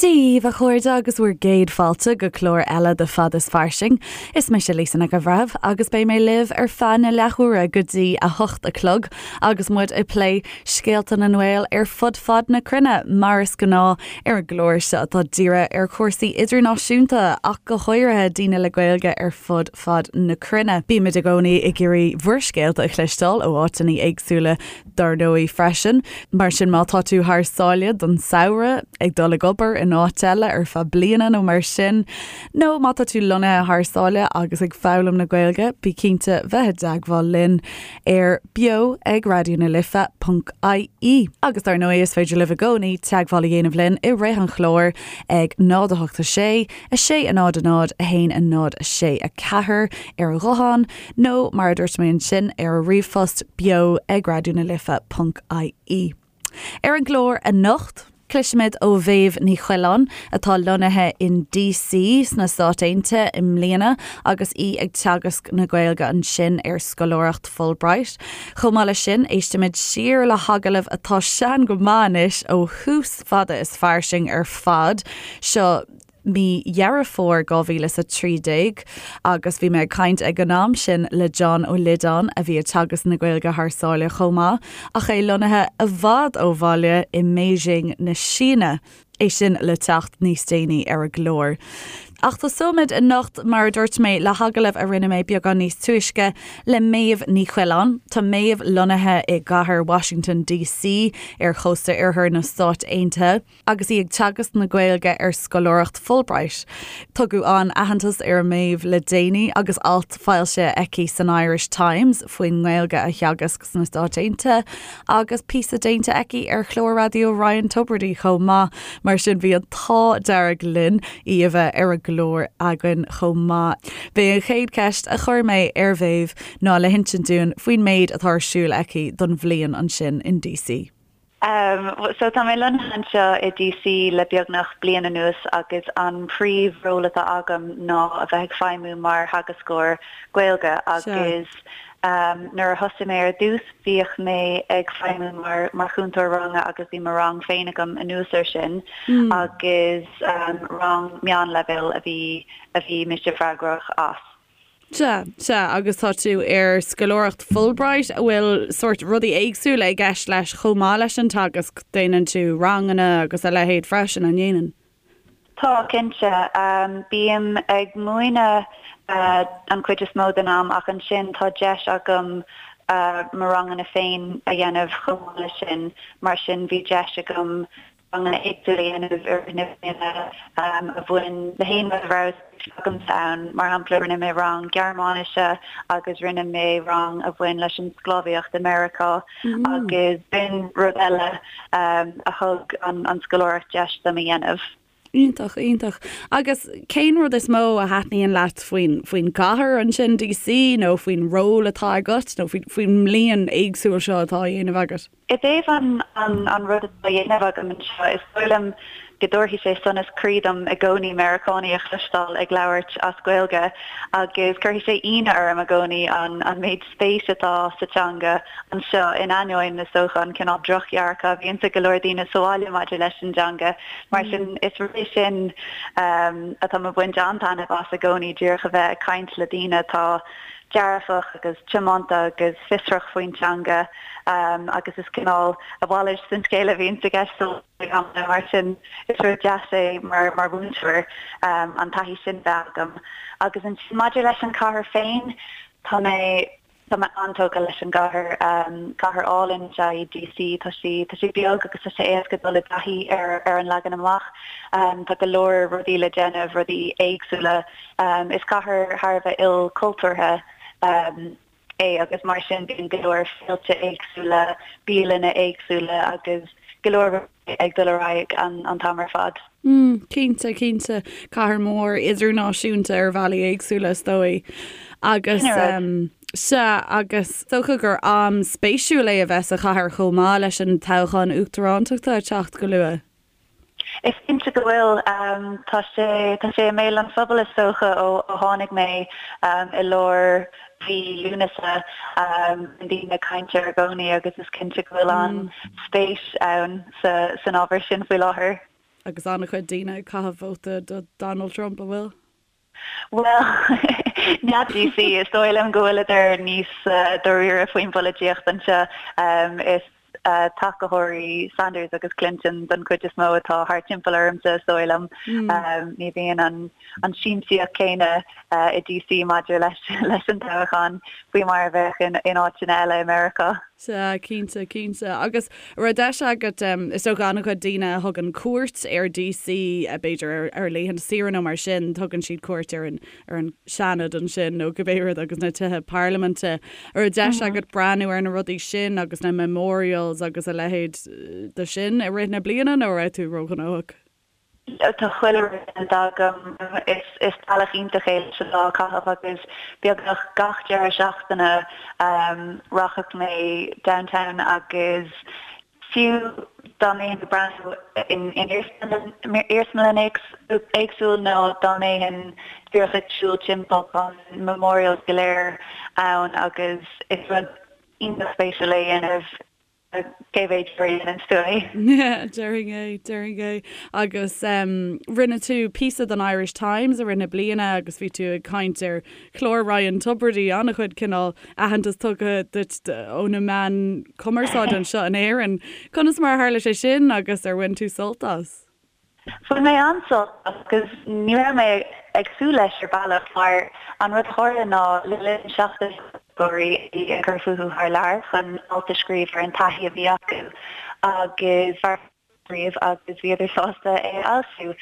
Dia dhaoibh a chairde agus bhur gcéad fáilte go clár eile de Fad is Fairsing. Is mise Lisa Nic an Bhreithimh agus beidh mé libh ar feadh na leathuaire go dtí 8 a chlog agus muid ag plé scéalta na nGael ar fud fad na cruinne, mar is gnáth ar an gclár seo atá dírithe ar chúrsaí idirnáisiúnta ach go háirithe daoine le Gaeilge ar fud fad na cruinne. Bímid i gcónaí ag iarraidh bhur scéalta a chloisteáil ó áiteanna éagsúla dar ndóigh freisin. Mar sin má tá tú thar sáile don samhradh, ag dul ag obair in áit eile ar feadh bliana nó mar sin, nó má tá tú lonnaithe thar sáile agus ag foghlaim na Gaeilge, bí cinnte bheith i dteagmháil linn ar beo ag Raidió na Life ponc ie. Agus dar ndóigh is féidir libh i gcónaí teagmháil a dhéanamh linn i rith an chláir ag 0 8 6 6 0 0 1 0 6 4 ar an ghuthán, nó mar a dúirt mé ansin, ar an ríomhphost, beo ag Raidió na Life ponc ie. Ar an gclár anocht, cloisfimid ó Mhéabh Ní Choileáin, atá lonnaithe in DC sna Stáit Aontaithe i mbliana agus í ag teagasc na Gaeilge ansin ar scoláireacht Fulbright. Chomh maith leis sin, éistfimid siar le hagallamh atá sean go maith anois ó thús Fada is Fairsing ar fad. Seo mí Dheireadh Fómhair 2013 agus bhí mé ag caint ag an am sin le John Ó Loideáin a bhí ag teagasc na Gaeilge thar sáile chomh maith ach é lonnaithe i bhfad ó bhaile i mBeijing na Síne. É sin le teacht níos déanaí ar an gclár. Ach tosóimid anocht, mar a dúirt mé, le hagallamh a rinne mé beagán níos túisce le Méabh Ní Choileáin. Tá Méabh lonnaithe i gcathair Washington DC ar chósta oirthear na Stáit Aontaithe. agus í ag teagasc na Gaeilge ar scoláireacht Fulbright. Tugadh an-aitheantas ar Méabh le déanaí agus alt foilsithe aici san Irish Times faoin nGaeilge a theagasc sna Stáit Aontaithe agus píosa déanta aici ar chlár raidió Ryan Tubridy chomh maith. Mar sin bhí an t-ádh dearg linn í a bheith ar an gclár againn chomh maith. B'é an chéad cheist a chuir mé ar Mhéabh ná le hinsint dúinn faoin méid atá ar siúl aici don bhliain ansin in DC. So tá mé lonnaithe anseo i DC le beagnach bliain anuas agus an príomh-ról atá agam ná a bheith ag feidhmiú mar theagascóir Gaeilge agus nuair a thosaigh mé ar dtús bhíodh mé ag feidhmiú mar mar chúntóir ranga agus bhí mo rang féin agam anuas air sin agus rang meánleibhéil a bhí a bhí mise freagrach as. Sea, sea, agus tá tú ar scoláireacht Fulbright, a bhfuil sórt rudaí éagsúla i gceist leis chomh maith leis an teagasc, déanann tú ranganna agus a leithéid freisin, an ndéanann? Tá, cinnte. Bím ag múineadh an chuid is mó den am ach ansin tá deis agam mo ranganna féin a dhéanamh chomh maith leis sin, mar sin bhí deis agam ranganna éagsúla a dhéanamh i rith na bliana a bhain le haon rud a raibh spéis agamsa ann. Mar shampla, rinne mé rang Gearmáinise agus rinne mé rang a bhain leis an sclábhaíocht i Meiriceá agus b'in rud eile a thug an scoláireacht deis dom a dhéanamh. Iontach, iontach. Agus cén rud is mó a thaitníonn leat faoin, faoin gcathair ansin, DC, nó faoin ról atá agat, nó faoin, faoin mbliain éagsúil seo atá á dhéanamh agat? I dtaobh an rud atá á dhéanamh agam anseo, is dóigh liom go dtabharfaidh sé sonas croí dom i gcónaí Meiriceánaigh a chloisteáil ag labhairt as Gaeilge agus cuirfidh sé ionadh orm i gcónaí an méid spéis atá sa teanga anseo in ainneoin, is dócha, an cineál drochdhearcadh a bhíonns ag go leor daoine sa bhaile maidir leis an dteanga. Mar sin, is rud é sin atá mé ag baint an-taitneamh as i gcónaí, díreach a bheith ag caint le daoine atá dearfach agus tiomanta agus fiosrach faoin teanga agus is cineál a mhalairt den scéal a bhíonns i gceist ag amanna mar sin is rud deas é mar mar mhúinteoir an taithí sin bheith agam. Agus ansin maidir leis an chathair féin, tá mé tá mé an-tógtha leis an gcathair. Cathair álainn is ea í DC, tá sí tá sí beag agus tá sé éasca dul i dtaithí ar ar an leagan amach. Tá go leor rudaí le déanamh, rudaí éagsúla. Is cathair thar a bheith ilchultúrtha é agus mar sin bíonn go leor féilte éagsúla, bialanna éagsúla agus go leor rudaí ag dul ar aghaidh an t-am ar fad. Mm, cinnte, cinnte. Cathair mhór idirnáisiúnta ar bhealaí éagsúla is dóigh. Agus sea, agus is dócha gur am spéisiúil é a bheith sa chathair chomh maith leis an toghchán uachtarántachta ag teacht go luath. Is cinnte go bhfuil. Tá sé, tá sé i mbéal an phobail is dócha ó tháinig mé i lár mhí Lúnasa. Bíonn daoine ag caint air i gcónaí agus is cinnte go bhfuil an-spéis ann san ábhar sin faoi láthair. Agus an-chuid daoine ag caitheamh vóta do Donald Trump, an bhfuil? Bhuel, n'fheadar DC, is dóigh liom go bhfuileadar níos dáiríre faoin bpolaitíocht anseo. Is tacaitheoirí Sanders agus Clinton don chuid is mó atá thart timpeall ormsa, is dóigh liom. Ní bhíonn an siamsaíocht chéanna i DC maidir leis an toghchán faoi mar a bheadh in áiteanna eile i Meiriceá. Sea, cinnte, cinnte. Agus an raibh deis agat, is dócha an-chuid daoine a thugann cuairt ar DC, b'fhéidir ar laethanta saoire nó mar sin, tugann siad cuairt ar an, ar an Seanad ansin nó cibé rud agus na tithe parlaiminte. An raibh deis agat breathnú ar na rudaí sin agus na memorials agus a leithéid de sin i rith na bliana nó an raibh tú róghnóthach? Tá chuile rud déanta agam. Is bealach iontach é leis an lá a chaitheamh agus beagnach gach deireadh seachtaine rachadh mé downtown agus fiú dá mbeinn ag breathnú in iarsmalann éagsúil nó dá mbeinn díreach ag siúl timpeall tá na memorials go léir ann agus is rud iontach spéisiúil é a dhéanamh. Cé mhéad uair a dhéanann tú é? Déarfainn é, déarfainn é. Agus rinne tú píosa don Irish Times i rith na bliana agus bhí tú ag caint ar chlár Ryan Tubridy, an-chuid cineál aitheantas tugtha duit ó na meáin cumarsáide anseo in Éirinn. Conas mar a tharla sé sin agus ar bhain tú sult as? Bhain mé an-sult as agus ní raibh mé ag súil leis ar bhealach mar an rud a tharla ná le linn seachtain Gaeilgeoirí a bhí ag cur fúthu thar lear chun alt a scríobh ar an taithí a bhí acu agus scríobh agus bhíodar sásta é a fhoilsiú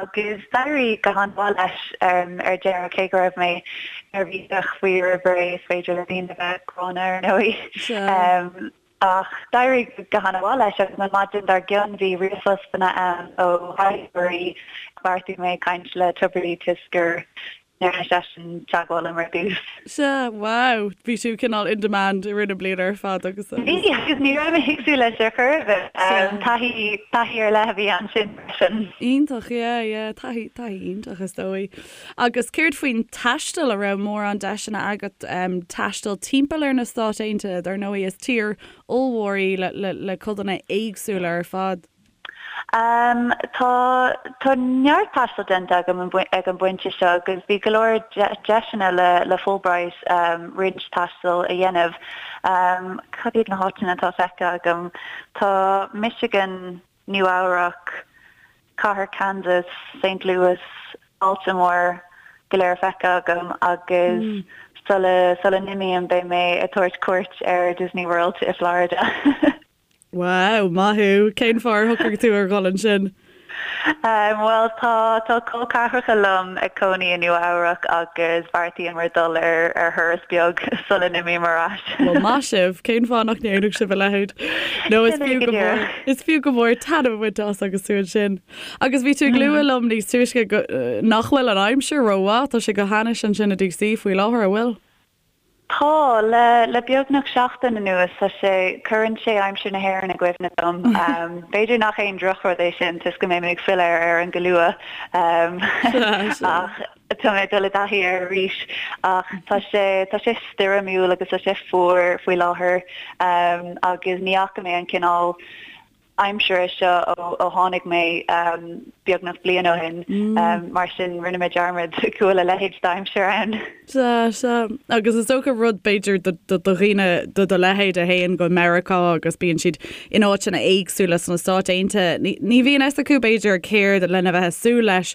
agus d'éirigh go han-mhaith leis ar deireadh cé go raibh mé neirbhíseach faoi roimh ré is féidir le daoine a bheith gránna ar ndóigh. Ach d'éirigh go han-mhaith leis agus an maidin dár gcionn bhí ríomhphostanna ann ó thaighdeoirí. Bheartaigh mé caint le Tubridy toisc gur ndearna seisean teagmháil liom ar dtús. Sea, wow! Bhí tú cineál in demand i rith na bliana ar fad agus. Bhí, agus ní raibh mé ag súil leis ar chor ar bith. Taithí, taithí ar leith a bhí ansin freisin. Iontach, yeah, yeah, taithí, taithí iontach is dóigh. Agus céard faoin taisteal, an raibh mórán deiseanna agat taisteal timpeall ar na Stáit Aontaithe? Dar ndóigh is tír ollmhór í le codanna éagsúla ar fad. Tá tá neart taistil déanta agam ag an bpointe seo agus bhí go leor deiseanna le Fulbright roinnt taistil a dhéanamh. Cad iad na háiteanna atá feicthe agam? Tá Michigan, Nua Eabhrac, Cathair Kansas, Saint Louis, Baltimore go léir feicthe agam agus sula sula n-imím beidh mé ag tabhairt cuairt ar Disney World i Florida. Wow, maith thú! Cén fáth ar shocraigh tú ar dhul ansin? Bhuel tá tá col ceathracha liom ag cónaí i Nua Eabhrac agus bheartaíomar dul ar ar thuras beag sula n-imím ar ais. Bhuel maith sibh! Cén fáth nach ndéanfadh sibh a leithéid? Nó is fiú go mór is fiú go mór taitneamh a bhaint as agus tú ansin. Agus bhí tú ag lua liom níos túisce go nach bhfuil an aimsir rómhaith, tá sé go hainnis ansin i DC faoi láthair, an bhfuil? Tá, le le beagnach seachtain anuas tá sé, cuireann sé aimsir na hÉireann i gcuimhne dom. B'fhéidir nach aon drochrud é sin toisc go mbeidh mé ag filleadh ar Éirinn go luath ach tá mé ag dul i dtaithí air arís. Ach tá sé, tá sé stoirmiúil agus tá sé fuar faoi láthair agus ní fhaca mé an cineál aimsire seo ó tháinig mé beagnach bliain ó shin, mar sin rinne mé dearmad go bhfuil a leithéid d'aimsir ann. Sea, sea. Agus is dócha rud b'fhéidir do dhaoine de do leithéid a théann go Meiriceá agus bíonn siad in áiteanna éagsúla sna Stáit Aontaithe, ní bhíonn fhios acu b'fhéidir céard lena bheith ag súil leis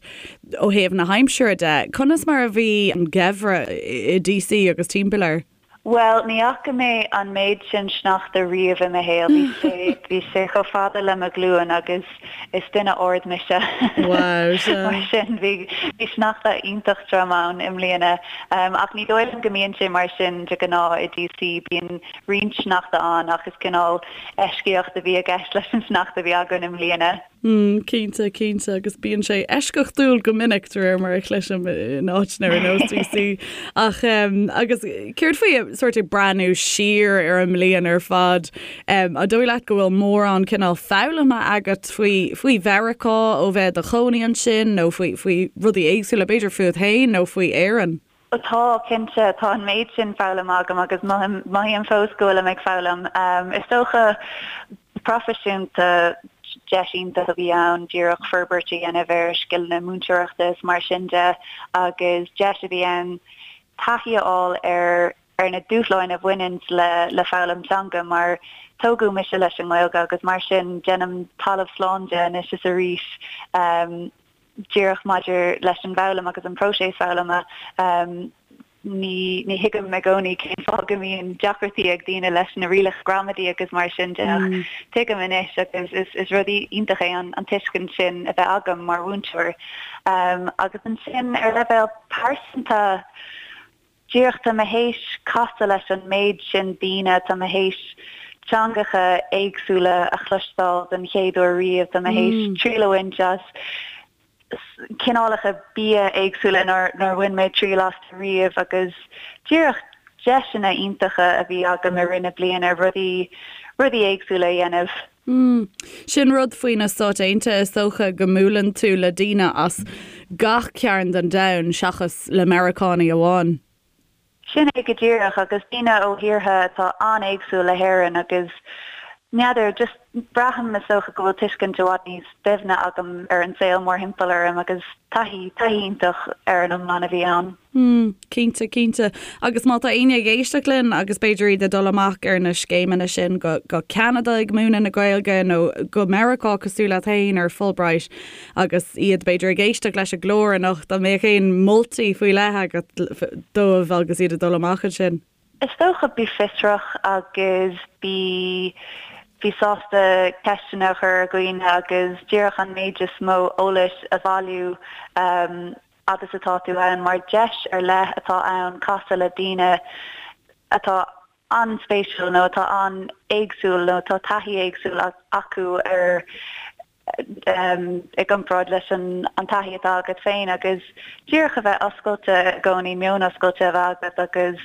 ó thaobh na haimsire de. Conas mar a bhí an geimhreadh i DC agus timpeall air? Bhuel, ní fhaca mé an méid sin sneachta riamh i mo shaol. Bhí sé, bhí sé chomh fada le mo ghlúin agus is duine ard mise. Wow, sea. Mar sin, bhí, bhí sneachta iontach trom ann i mbliana. Ach ní dóigh liom go mbíonn sé mar sin de ghnáth i DC. Bíonn roinnt sneachta ann ach is cineál eisceacht a bhí i gceist leis an sneachta a bhí againn i mbliana. Mm, cinnte, cinnte, agus bíonn sé eisceachtúil go minic de réir mar a chloisim in áiteanna ar nós DC. Ach um, agus céard faoi sort ag breathnú siar ar an mbliain ar fad, um, an dóigh leat go bhfuil mórán cineál foghlamtha agat faoi, faoi Mheiriceá ó bheith i do chónaí ansin nó faoi, faoi rudaí éagsúla, b'fhéidir fút féin nó faoi Éirinn? Tá, cinnte. Tá an méid sin foghlamtha agam agus mothaím fós go bhfuilim ag foghlaim. Is dócha, go proifisiúnta. Deis iontach a bhí ann díreach forbairt a dhéanamh ar scileanna múinteoireachta is mar sin de agus deis a bhí ann taithí a fháil ar ar na dúshláin a bhaineann le le foghlaim teanga mar tógadh mise leis an nGaeilge agus mar sin déanaim talamh slán de anois is arís díreach maidir leis an bhfoghlaim agus an próiseas foghlama. Ní ní thuigim i gcónaí cén fáth go mbíonn deacrachtaí ag daoine leis na rialacha gramadaí agus mar sin de ach tuigim anois agus is is rud iontach é an an tuiscint sin a bheith agam mar mhúinteoir. Agus ansin ar leibhéal pearsanta, díreach tá mé théis casadh leis an méid sin daoine, tá mé théis teangacha éagsúla a chloisteáil den chéad uair riamh, tá mé théis triail a bhaint as cineálacha bia éagsúla nár bhain mé triail astu riamh agus díreach deiseanna iontacha a bhí agam i rith na bliana rudaí rudaí éagsúla a dhéanamh. Mm. Sin rud faoi na Stáit Aontaithe, is dócha go mbuaileann tú le daoine as gach cearn den domhan seachas le Meiriceánaigh amháin. Sin é go díreach, agus daoine ó thíortha atá an-éagsúil le hÉirinn agus n'fheadar, just braithim is dócha go bhfuil tuiscint i bhfad níos doimhne agam ar an saol mórthimpeall orm agus taithí, taithí iontach ar an iomlán a bhí ann. Mm, cinnte, cinnte. Agus má tá éinne ag éisteacht linn agus b'fhéidir iad ag dul amach ar na scéimeanna sin go, go Ceanada ag múineadh na Gaeilge nó go Meiriceá cosúil leat féin ar Fulbright, Agus iad, b'fhéidir, ag éisteacht leis an gclár anocht, an mbeadh aon moltaí faoi leith agat dóibh agus iad ag dul amach ansin? Is dócha, bí fiosrach agus bí bí sásta ceisteanna a chur ar dhaoine agus díreach an méid is mó eolais a bhailiú fhad is atá tú ann, mar deis ar leith atá ann casadh le daoine atá an-spéisiúil nó atá an-éagsúil nó atá taithí éagsúil acu ar i gcomparáid leis an taithí atá agat féin agus díreach a bheith oscailte i gcónaí, meon oscailte a bheith agat agus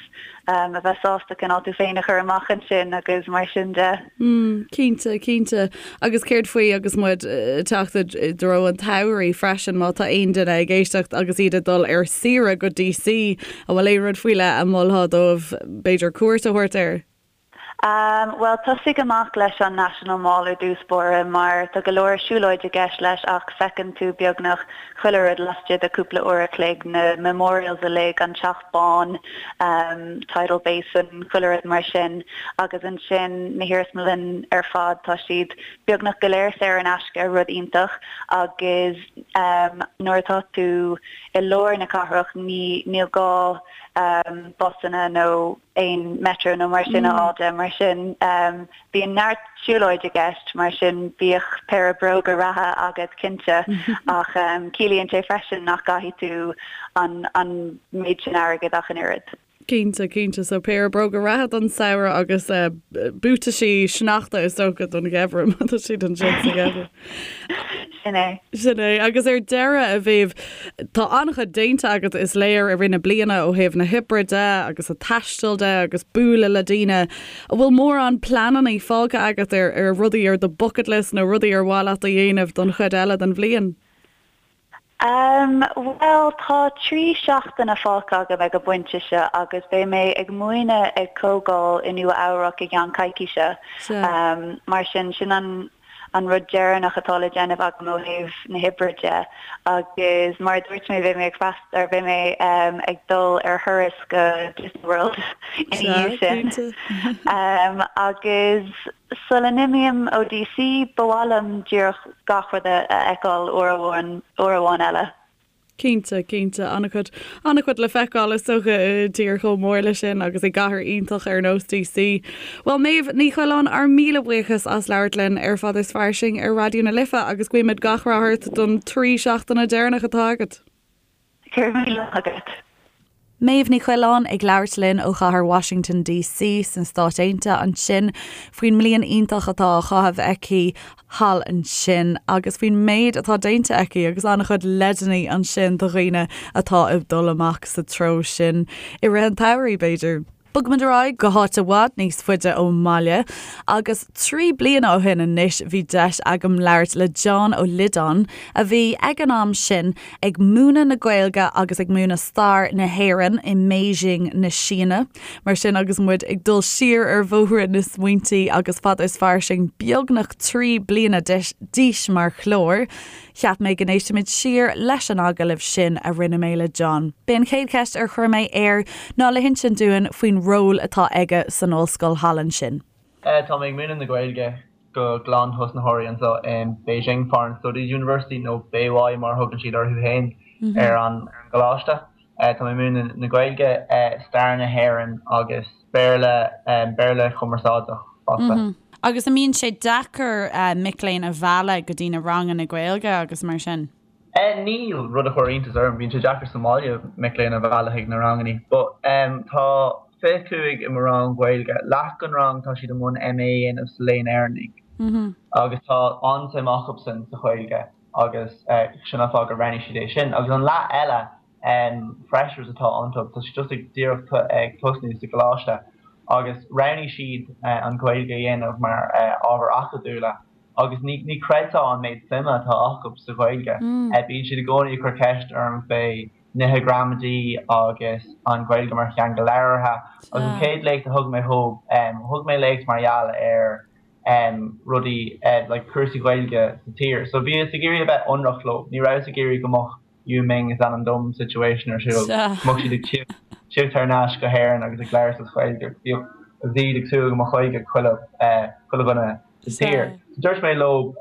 a bheith sásta cineál tú féin a chur amach ansin agus mar sin de. Mm, cinnte, cinnte. Agus céard faoi agus muid ag teacht i dtreo an tsamhraidh freisin, má tá aon duine ag éisteacht agus iad ag dul ar saoire go DC, an bhfuil aon rud faoi leith a mholfá dóibh b'fhéidir cuairt a thabhairt air? Bhuel, tosaigh amach leis an National Mall ar dtús báire mar tá go leor siúlóid i gceist leis ach feiceann tú beagnach chuile rud laistigh de cúpla uair a chloig, na memorials uilig, an Teach Bán, Tidal Basin, chuile rud mar sin. Agus ansin na hiarsmalainn ar fad, tá siad beagnach go léir saor in aisce, rud iontach, agus nuair atá tú i lár na cathrach ní níl gá busanna nó aon metro nó mar sin a fháil de, mar sin bíonn neart siúlóid i gceist, mar sin bíodh péire bróga reatha agat cinnte ach ciallaíonn sé freisin nach gcaithfidh tú an an méid sin airgid ach an oiread. Cinnte, cinnte, so péire bróga reatha don samhradh agus buataisí sneachta is dócha don gheimhreadh má tá siad ansin sa gheimhreadh. Sin é. Sin é. Agus ar deireadh, a Mhéabh, tá an-chuid déanta agat, is léir, i rith na bliana ó thaobh na hoibre de agus an taistil de agus bualadh le daoine. An bhfuil mórán pleananna fágtha agat ar ar rudaí ar do bucket list nó rudaí ar mhaith leat a dhéanamh don chuid eile den bhliain? Umm, bhuel, tá 3 seachtaine fágtha agam ag an bpointe seo agus beidh mé ag múineadh ag comhdháil i Nua Eabhrac i gceann coicíse. Umm, mar sin, sin an an rud deireanach atá le déanamh agam ó thaobh na hoibre de. Agus mar a dúirt mé, beidh mé ag freastal, or beidh mé ag dul ar thuras go Disney World ina dhiaidh sin. Umm, agus Sula n-imím ó DC, ba mhaith liom díreach gach rud a fheiceáil uair amháin, uair amháin eile. Cinnte, cinnte. An-chuid, an-chuid le feiceáil is dócha i dtír chomh mór leis sin agus i gcathair iontach ar nós DC. Bhuel, Méabh Ní Choileáin, ár míle buíochas as labhairt linn ar Fad is Fairsing ar Raidió na Life agus guímid gach rath ort don 3 seachtaine deireanach atá agat. Go raibh míle maith agat. Méabh Ní Choileáin ag labhairt linn ó chathair Washington DC sna Stáit Aontaithe ansin faoin mbliain iontach atá á chaitheamh aici thall ansin agus faoin méid atá déanta aici agus an-chuid leideanna ansin do dhaoine atá ag dul amach sa treo sin i rith an tsamhraidh, b'fhéidir. Bogfaimid ar aghaidh go háit i bhfad níos faide ón mbaile agus 3 bliana ó shin anois bhí deis agam labhairt le John Ó Loideáin a bhí ag an am sin ag múineadh na Gaeilge agus ag múineadh stair na hÉireann i mBeijing na Síne. Mar sin agus muid ag dul siar ar bhóithre na smaointe agus Fada is Fairsing beagnach 3 bliana d'aois mar chlár, Cheap mé go n-éistfimid siar leis an agallamh sin a rinne mé le John. B'é an chéad cheist ar chuir mé air ná le hinsint dúinn faoin ról atá aige san ollscoil thall ansin. Tá mé ag múineadh na Gaeilge do ghlan-thosnaitheoirí anseo in Beijing Foreign Studies University, nó Beiwai mar a thugann siad orthu féin ar an gcoláiste. Tá mé ag múineadh na Gaeilge, stair na hÉireann agus Béarla, Béarla chumarsáideach fosta. Agus an mbíonn sé deacair mic léinn a mhealladh go dtí na ranganna Gaeilge agus mar sin? Níl, rud a chuir iontas orm. Bíonn sé deacair sa mbaile mic léinn a mhealladh chuig na ranganna. But tá 25 i mo rang Gaeilge. Leath den rang tá siad i mbun MA a dhéanamh sa Léann Éireannach agus tá an-suim acusan sa Ghaeilge agus sin an fáth gur roghnaigh siad é sin. Agus an leath eile, freshers atá iontu, tá siad just ag díreach ag tosnú sa gcoláiste agus roghnaigh siad an Ghaeilge a dhéanamh mar ábhar acadúla agus ní ní chreidfeá an méid suime atá acu sa Ghaeilge. Bíonn siad i gcónaí ag cur ceist orm fé nithe gramadaí agus an Ghaeilge mar theanga labhartha agus an chéad léacht a thug mé dhóibh, thug mé léacht mar gheall ar rudaí like cúrsaí Gaeilge sa tír. So bhíos ag iarraidh a bheith ionraic leo, ní rabhas ag iarraidh go mbeadh Yu Ming is ainm dom situation ar siúl. Go mbeadh siad ag tíocht thar n-ais go hÉirinn agus ag labhairt as Gaeilge. Bhíodh agus iad ag súil go mbeadh Gaeilge ag chuile chuile dhuine sa tír. So dúirt mé leo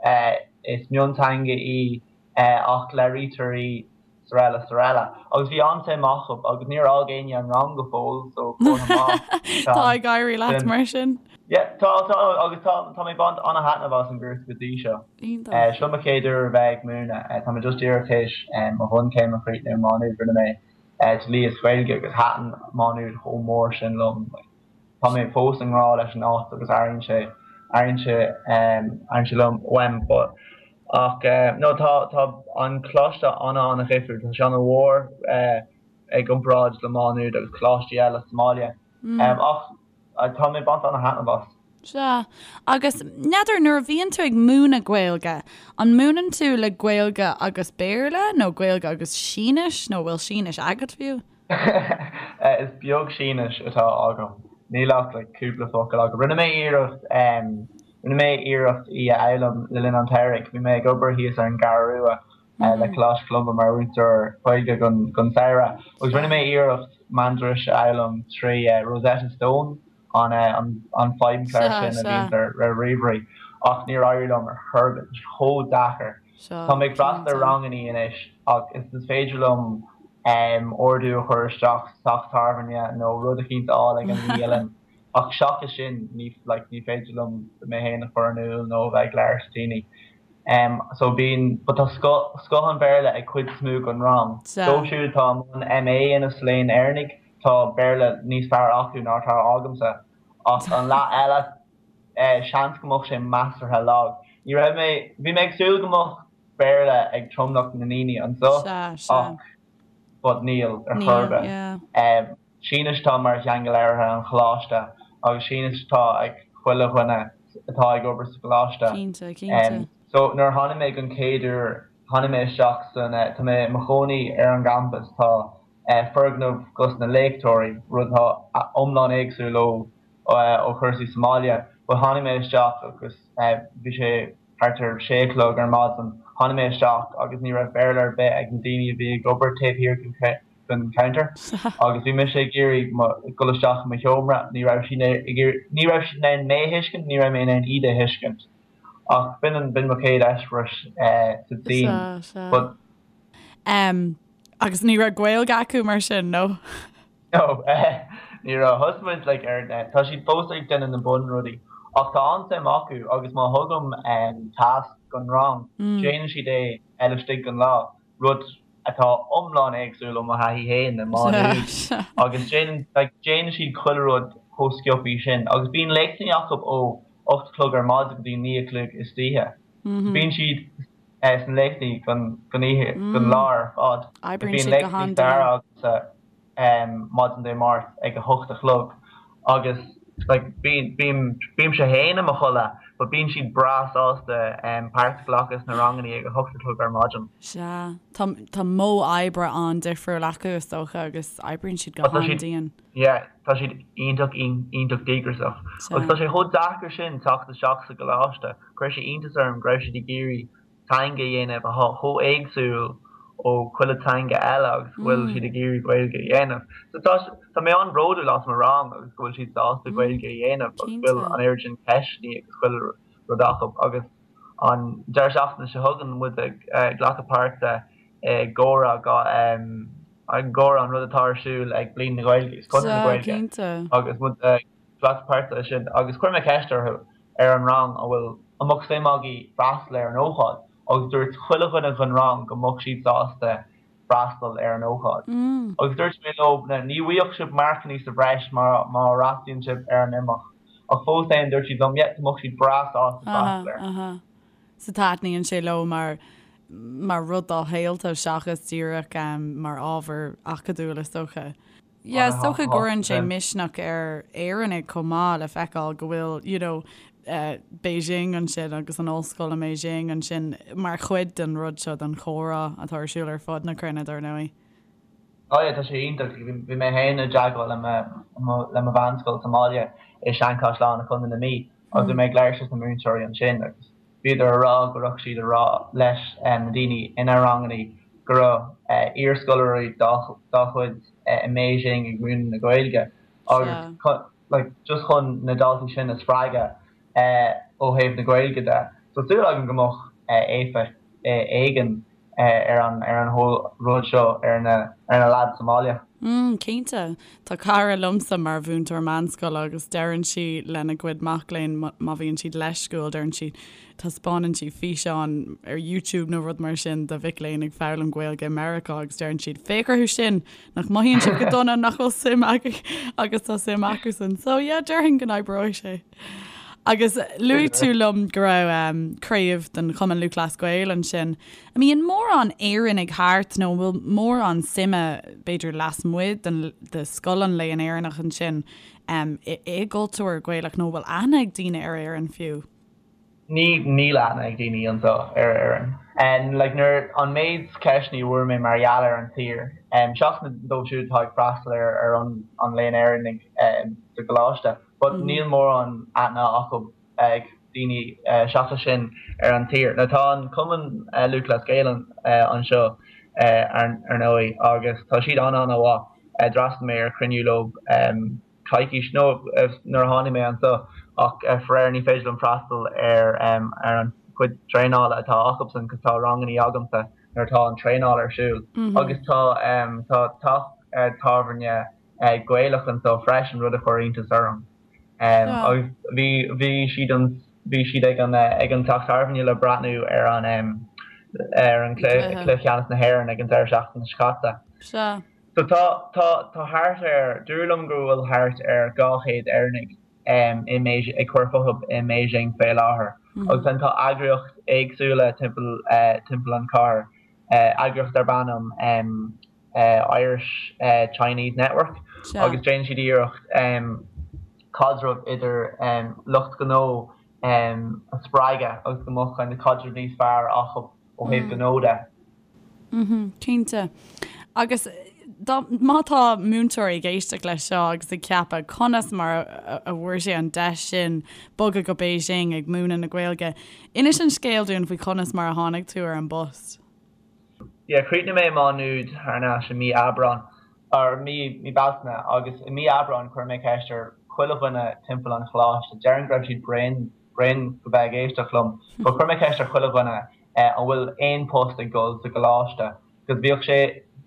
is mionteanga í ach labhraítear í 's araile 's araile. Agus bhí an-suim acu agus níor fhág éinne an rang go fóill so comhartha maith. Tá ag éirí leat mar sin. Yeah, tá, tá, agus tá, tá mé ag baint an-thaitneamh as an gcúrsa go dtí seo. Iontach. Seo mo chéad uair a bheith ag múineadh. Tá mé just díreach théis mo bhunchéim a chríochnú i Má Nuad. Rinne mé dlí is Gaeilge agus thaitin Má Nuad chomh mór sin liom. Tá mé fós i ngrá leis an áit agus airíonn sé, airíonn sé, airíonn sé liom, uaim. But, ach no, tá, tá an coláiste ana-ana-dhifriúil. Tá sé ana-mhór i gcomparáid le Má Nuad agus coláistí eile sa mbaile. Ach tá mé ag baint ana-thaitneamh as. Sea. Agus, n'fheadar, nuair a bhíonn tú ag múineadh Gaeilge, an múineann tú le Gaeilge agus Béarla nó Gaeilge agus Sínis nó bhfuil Sínis agat fiú? Is beag Sínis atá agam. Níl ach like cúpla focal agam. Rinne mé iarracht, rinne mé iarracht í a fhoghlaim le linn an tsamhraidh. Bhí mé ag obair thíos ar an gCeathrú Rua le Coláiste Cholumba mar mhúinteoir Gaeilge don samhradh agus rinne mé iarracht Mandairis a fhoghlaim trí Rosetta Stone, an feidhmchlár sin a bhíonns ar ríomhairí, ach níor éirigh liom ar chor ar bith, tá sé chomh deacair. Tá mé ag freastal ar rangannaí anois ach is féidir liom ordú a chur isteach sa teach tábhairne nó rud eicínt a fháil ag an mbialann ach seachas sin ní like ní féidir liom mé féin a chur in iúl nó a bheith ag labhairt le daoine. So bíonn, but tá scoth, scoth an Bhéarla ag cuid is mó den rang. Dóibh siúd atá i mbun MA a dhéanamh sa Léann Éireannaigh, tá Béarla níos fearr acu ná atá agamsa. Ach an leath eile, seans go mbeadh sé measartha lag. Ní raibh mé, bhí mé ag súil go mbeadh Béarla ag tromlach na ndaoine anseo ach but níl ar chor ar bith. Sínis atá mar theanga labhartha an choláiste agus Sínis atá ag chuile dhuine atá ag obair sa gcoláiste. Cinnte, cinnte. So nuair a tháinig mé don chéad uair, tháinig mé isteach san, tá mé i mo chónaí ar an gcampas, tá foirgneamh dos na léachtóirí, rud atá iomlán éagsúil ó ó chúrsaí sa mbaile. But tháinig mé isteach agus bhí sé thart ar sé a chlog ar maidin, tháinig mé isteach agus ní raibh Béarla ar bith ag na daoine a bhí ag obair taobh thiar den den counter agus bhí mise ag iarraidh dul isteach i mo sheomra, ní raibh siad ag iarraidh, ní raibh siad in ann mé a thuiscint, ní raibh mé in ann iad a thuiscint. Ach b'in an, b'in mo chéad eispéireas sa tSín. But. Em, agus ní raibh Gaeilge acu mar sin, nó? No, ní raibh. Thosaigh muid like ar, tá siad fós ag déanamh na bunrudaí ach tá an-suim acu agus má thugaim tasc don rang, déanann siad é laistigh den lá. rud atá iomlán éagsúil ó mo thaithí féin i Má Nuad agus déanann like déanann siad chuile rud chomh sciobthaí sin agus bíonn léachtanna acu ó 8 a chlog ar maidin go dtí 9 a chlog istoíche. Bíonn siad sna léachtaí don don oíche don lá ar fad. Oibríonn siad go han-dian. Bíonn léachtaí staire agamsa maidin Dé Máirt ag a 8 a chlog. agus like bíonn bím bímse féin i mo chodladh but bíonn siad breá sásta páirt a ghlacadh sna rangannaí ag a hocht a chlog ar maidin. Sea. Tá tá modh oibre an-difriúil acu is dócha agus oibríonn siad go Tá siad han-dian. yeah tá siad iontach iontach díograiseach. Sea. Agus tá sé chomh deacair sin teacht isteach sa gcoláiste. Chuir sé iontas orm go raibh siad ag iarraidh teanga a dhéanamh atá chomh éagsúil ó chuile teanga eile agus go bhfuil siad ag iarraidh Gaeilge a dhéanamh. So tá tá mé an-bhródúil as mo rang agus go bhfuil siad sásta Gaeilge a dhéanamh agus go bhfuil an oiread sin ceisteanna agus chuile rud acu agus an deireadh seachtaine seo chugainn muid ag glacadh páirte i gcomhrá i gcomhrá an rud atá ar siúl ag Bliain na Gaeilge agus Conradh na Gaeilge agus muid ag glacadh páirte i sin agus chuir mé ceist orthu ar an rang an bhfuil an mbeadh suim agaibh freastal ar an ócáid agus dúirt chuile dhuine den rang go mbeadh siad sásta freastal ar an ócáid. Agus dúirt mé leo ní bhfuigheadh sibh marcannaí sa bhreis má má fhreastalaíonn sibh ar an imeacht ach fós féin dúirt siad liom yeah go mbeadh siad breá sásta freastal air. So taitníonn sé leo mar mar rud dá shaolta seachas díreach mar ábhar acadúil is dócha. Yeah, is dócha go gcuireann sé misneach ar Éireannaigh chomh maith le feiceáil go bhfuil, you know, Beijing ansin agus an ollscoil i mBeijing ansin mar chuid den rud seo, den chomhrá atá ar siúl ar fud na cruinne, dar ndóigh. Oh yeah, tá sé iontach. Bhí mé féin i dteagmháil le mo le mo mheánscoil sa mbaile i Seanchaisleán i Contae na Mí agus bhí mé ag labhairt leis na múinteoirí ansin agus Bhíodar a rá go raibh siad a rá leis na daoine ina rangannaí go raibh iarscoláirí dá gcuid i mBeijing ag múineadh na Gaeilge agus like just chun na daltaí sin a spreagadh ó thaobh na Gaeilge de. So súil agam go mbeadh éifeacht éigin ar an ar an whole rud seo ar na ar na lads sa mbaile. Mm, cinnte. Tá cara liomsa mar mhúinteoir meánscoile agus deireann sí lena gcuid mac léinn má bhíonn siad leisciúil, deireann sí, taispeánann sí físeán ar YouTube nó rud mar sin de mhic léinn ag foghlaim Gaeilge i Meiriceá agus deireann siad, féach orthu sin, nach mothaíonn siad go dona, nach bhfuil suim acu agus tá suim acusan. So yeah, déarfainn go n-oibreoidh sé. Agus luaigh tú liom go raibh craobh den Chumann Lúthchleas Gael ansin. An mbíonn mórán Éireannaigh thart nó an bhfuil mórán suime, b'fhéidir lasmuigh den de scoil an Léann Éireannach ansin i gcultúr Gaelach nó an bhfuil aithne ag daoine ar Éirinn fiú? Ní, níl aithne ag daoine anseo ar Éirinn. Like nuair, an méid ceisteanna a bhfuair mé mar gheall ar an tír, seachas na dóibh siúd atá ag freastal ar ar an an Léann Éireannaigh sa gcoláiste, but níl mórán aithne acu ag daoine seachas sin ar an tír. Now tá an Cumann Lúthchleas Gael anseo ar ndóigh agus tá siad an-an-mhaith. D'fhreastail mé ar chruinniú leo coicís nó nuair a tháinig mé anseo ach faraor ní féidir liom freastal ar ar an chuid traenála atá acusan cos tá rangannaí agamsa nuair atá an traenáil ar siúl agus tá tá teach tábhairne Gaelach anseo freisin, rud a chuir iontas orm. Agus bhí bhí siad an bhí siad ag an ag an teach tábhairne le breathnú ar an ar an cluiche ceannais na hÉireann ag an deireadh seachtaine seo caite. Sea. So tá tá tá thart ar dúradh liom go bhfuil thart ar 200 Éireannaigh i mBeijing ag cur fúthu i mBeijing fé láthair. Agus then tá eagraíocht éagsúla timpeall timpeall an chathair, eagraíocht darb ainm Irish Chinese Network agus déanann siad iarracht caidreamh idir lucht gnó a spreagadh agus go mbeadh kind of caidreamh níos fearr acu ó thaobh gnó de. Cinnte. Agus dá, má tá múinteoirí ag éisteacht leis seo agus ag ceapadh conas mar a bhfuair sé an deis sin bogadh go Beijing ag múineadh na Gaeilge, inis an scéal dúinn faoi chonas mar a tháinig tú ar an bpost. Yeah, chríochnaigh mé i Má Nuad thar n-ais i mí Aibreán, or mí, mí Bealtaine, agus i mí Aibreáin chuir mé ceist ar chuile dhuine timpeall an choláiste, déarfainn go raibh siad bréan, bréan de bheith ag éisteacht liom, but chuir mé ceist ar chuile dhuine eh an bhfuil aon post ag dul sa gcoláiste, cos bhíodh sé,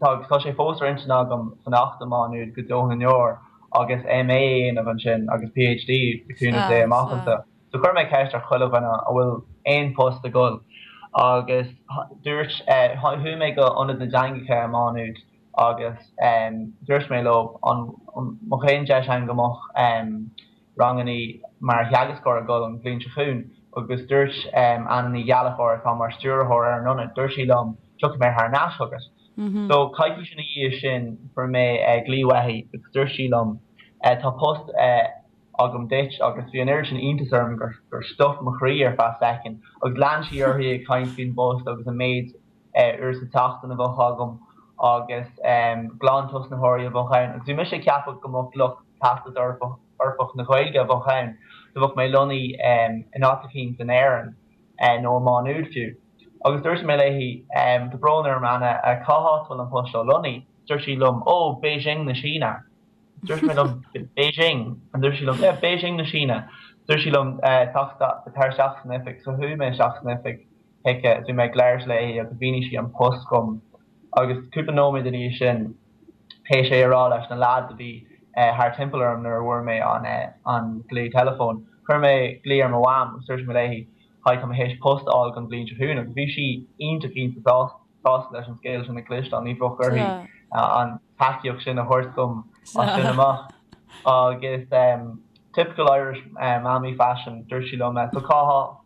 tá, tá sé fós ar intinn agam fanacht i Má Nuad go deo na ndeor agus MA a dhéanamh ansin agus PhD le cúnamh Dé amach anseo. So chuir mé ceist ar chuile dhuine an bhfuil aon post ag dul agus dúirt, chuaigh mé go Ionad na dTeangacha i Má Nuad agus dúirt mé leo an mbeadh aon deis ann go mbeadh rangannaí mar theagascóir ag dul an bhliain seo chugainn agus dúirt Anna Ní Ghallchóir atá mar stiúrthóir ar an ionad, dúirt sí liom tiocfaidh mé thar n-ais chugat. So coicís ina dhiaidh sin fuair mé glaoch uaithi agus dúirt sí liom. Tá post agam duit agus bhí an oiread sin iontas orm gur gur stop mo chroí ar feadh soicind agus lean sí uirthi ag caint faoin bpost agus an méid uair sa tseachtain a bheadh agam agus glantosnaitheoirí a bheadh ann agus bhí mise ag ceapadh go mbeadh lucht Teastas Eorpach na Gaeilge a bheadh ann so bheadh mé lonnaithe in áit eicínt in Éirinn nó i Má Nuad fiú. Agus dúirt mé léi, tá brón orm Anna, cá háit a bhfuil an post seo lonnaithe? Dúirt sí liom, Ó, Beijing na Síne. Dúirt mé liom, Beijing? And dúirt sí liom, Yeah, Beijing na Síne. Dúirt sí liom, tar isteach san oifig. So chuaigh mé isteach san oifig chuici is bhí mé ag labhairt léi agus mhínigh sí an post dhom. Agus cúpla nóiméad ina dhiaidh sin, théis é a rá leis na lads a bhí thar timpeall orm nuair a bhfuair mé an glao teileafóin, chuir mé glao ar mo mham agus dúirt mé léi, Hi, tá mé théis post a fháil don bhliain seo chugainn agus bhí sí iontach iontach sásta leis an scéal sin a chloisteáil, ní bheadh uirthi an tacaíocht sin a thabhairt dom as sin amach. Agus typical Irish mammy fashion, dúirt sí liom, so cá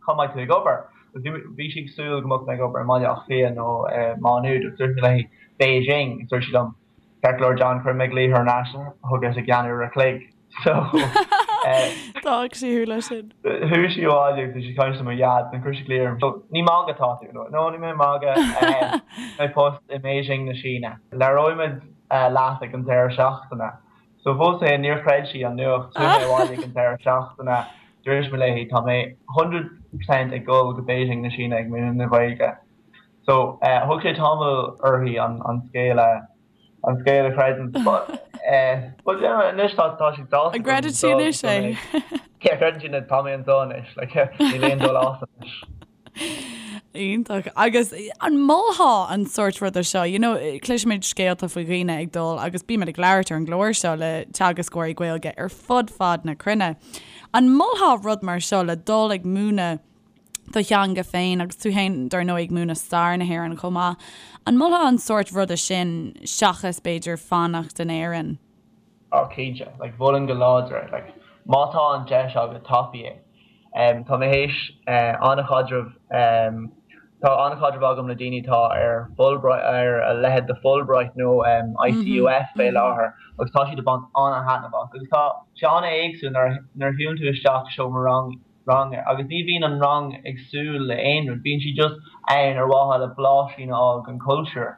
cá mbeidh tú ag obair? Agus bhí sí ag súil go mbeadh mé ag obair i mBaile Átha Cliath nó i Má Nuad agus dúirt mé léi Beijing agus dúirt sí liom, Ceart go leor John, cuirfidh mé glaoch thar n-ais chugat i gceann uair a chloig. So D'fhág sí thú leis sin. Chuaigh sí abhaile agus bhí sí ag caint le mo dhaid and chuir sí glaoch orm. So ní ag magadh atá tú? No, no níl mé ag magadh. Tá post i mBeijing na Síne. Labhróimid leat ag an deireadh seachtaine. So fós féin níor chreid sí an nuacht. Chuaigh mé abhaile ag an deireadh seachtaine. Dúirt mé léi tá mé 100% ag dul go Beijing na Síne ag múineadh na Gaeilge. So thug sé tamall uirthi an scéal a an scéal a chreidiúint. But but yeah anois tá tá sí sásta An gcreideann sí anois é? Yeah creideann sí anois tá mé anseo anois like níl aon dul as anois. Iontach. Agus an molfá an sórt ruda seo, you know, cloisimid scéalta faoi dhaoine ag dul agus bímid ag labhairt ar an gclár seo le teagascóirí Gaeilge ar fud fad na cruinne. An molfá rud mar seo le dul ag múineadh do theanga féin agus tú féin dar ndóigh ag múineadh stair na hÉireann chomh maith. An molfá an sórt ruda sin seachas b'fhéidir fanacht in Éirinn? Oh cinnte, like mholfainn go láidir é, like má tá an deis agat tapaigh é. Em tá mé théis eh an-chaidreamh em tá an-chaidreamh agam le daoine atá ar Fulbright ar a leithéid de Fulbright nó em ICUF fé láthair agus tá siad ag baint an-thaitneamh as agus tá sé an-éagsúil nuair a nuair a shiúlann tú isteach i seomra rang ranga agus ní bhíonn an rang ag súil le aon rud, bíonn siad just ann ar mhaithe le blaisín a fháil den chultúr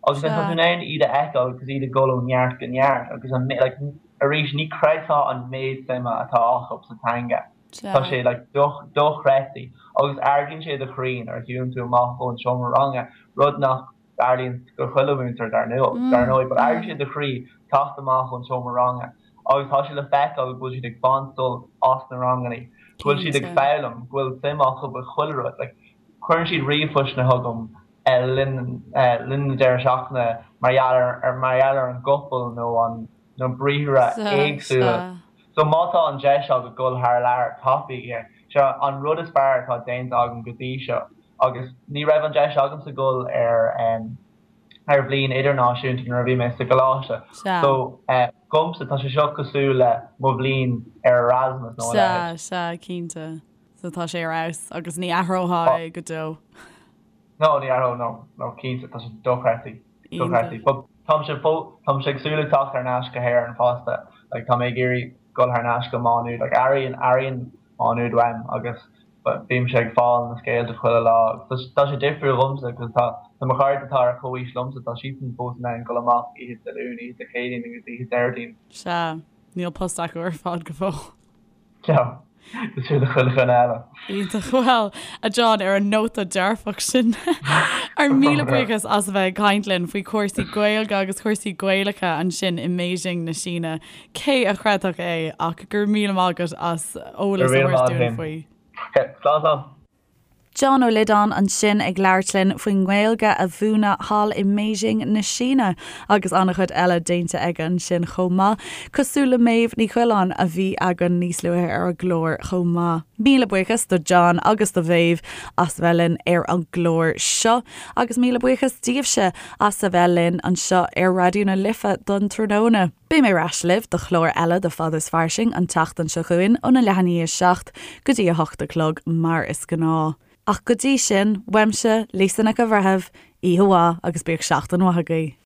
agus then tá tú in ann iad a fheiceáil agus iad ag dul ó neart go neart agus an like arís ní chreidfeá an méid suime atá acu sa teanga. Tá sé like dochreidte agus ardaíonn sé do chroí nuair a shiúlann tú amach ón seomra ranga, rud nach dtarlaíonn go chuile mhúinteoir dar ndóigh, but ardaíonn sé do chroí teacht amach ón seomra ranga agus tá sé le feiceáil go bhfuil siad ag baint sult as na ranganna, go bhfuil siad ag foghlaim, go bhfuil suim acu i chuile rud. Like, cuireann siad ríomhphostanna chugam le linn linn na deireadh seachtaine mar gheall ar mar gheall ar an gcopail nó an na briathra éagsúla. So má tá an deis agat dul thar lear, tapaigh é. Seo an rud is fearr atá déanta agam go dtí seo. Agus ní raibh an deis agamsa dul ar ar bhliain idirnáisiúnta nuair a bhí mé sa gcoláiste. So dhomsa tá sé seo cosúil le mo bhliain ar Erasmus nó a leithéid. Sea, sea, cinnte. So tá sé ar fheabhas agus ní athrófá é go deo. No, ní athróinn, no, no, cinnte, tá sé dochreidte, dochreidte. But táimse fó, táimse ag súil le teacht thar n-ais go hÉirinn fosta. Like tá mé ag iarraidh dul thar n-ais go Má Nuad. Like airíonn, airíonn Má Nuad uaim agus Bímse ag fáil na scéalta chuile lá. Tá sé difriúil dhomsa cos tá tá mo chairde atá ar chomhaois liomsa, tá siadsan fós in ann dul amach oíche Dé Luain, oíche Dé Céadaoin agus oíche Déardaoin. Sea, níl post acu ar fad go fóill. No, cosúil le chuile dhuine eile. Iontach. Bhuel, a John, ar an nóta dearfach sin, ár míle buíochas as a bheith ag caint linn faoi chúrsaí Gaeilge agus cúrsaí Gaelacha ansin i mBeijing na Síne. Cé a chreidfeadh é ach go raibh míle maith agat as eolas a thabhairt dúinn faoi. Slán slán. John Ó Loideáin ansin ag labhairt linn faoin nGaeilge a mhúineadh thall i mBeijing na Síne agus an-chuid eile déanta aige ansin chomh maith, cosúil le Méabh Ní Choileáin a bhí againn níos luaithe ar an gclár chomh maith. Míle buíochas do John agus do Mhéabh as a bheith linn ar an gclár seo agus míle buíochas daoibhse as a bheith linn anseo ar Raidió na Life don tráthnóna. Beidh mé ar ais libh do chlár eile de Fada is Fairsing an tseachtain seo chugainn óna leath i ndiaidh 7 go dtí 8 a chlog mar is gnáth. Ach go dtí sin, uaimse, Lisa Nic an Bhreithimh, oíche mhaith agus bíodh seachtain mhaith agaibh.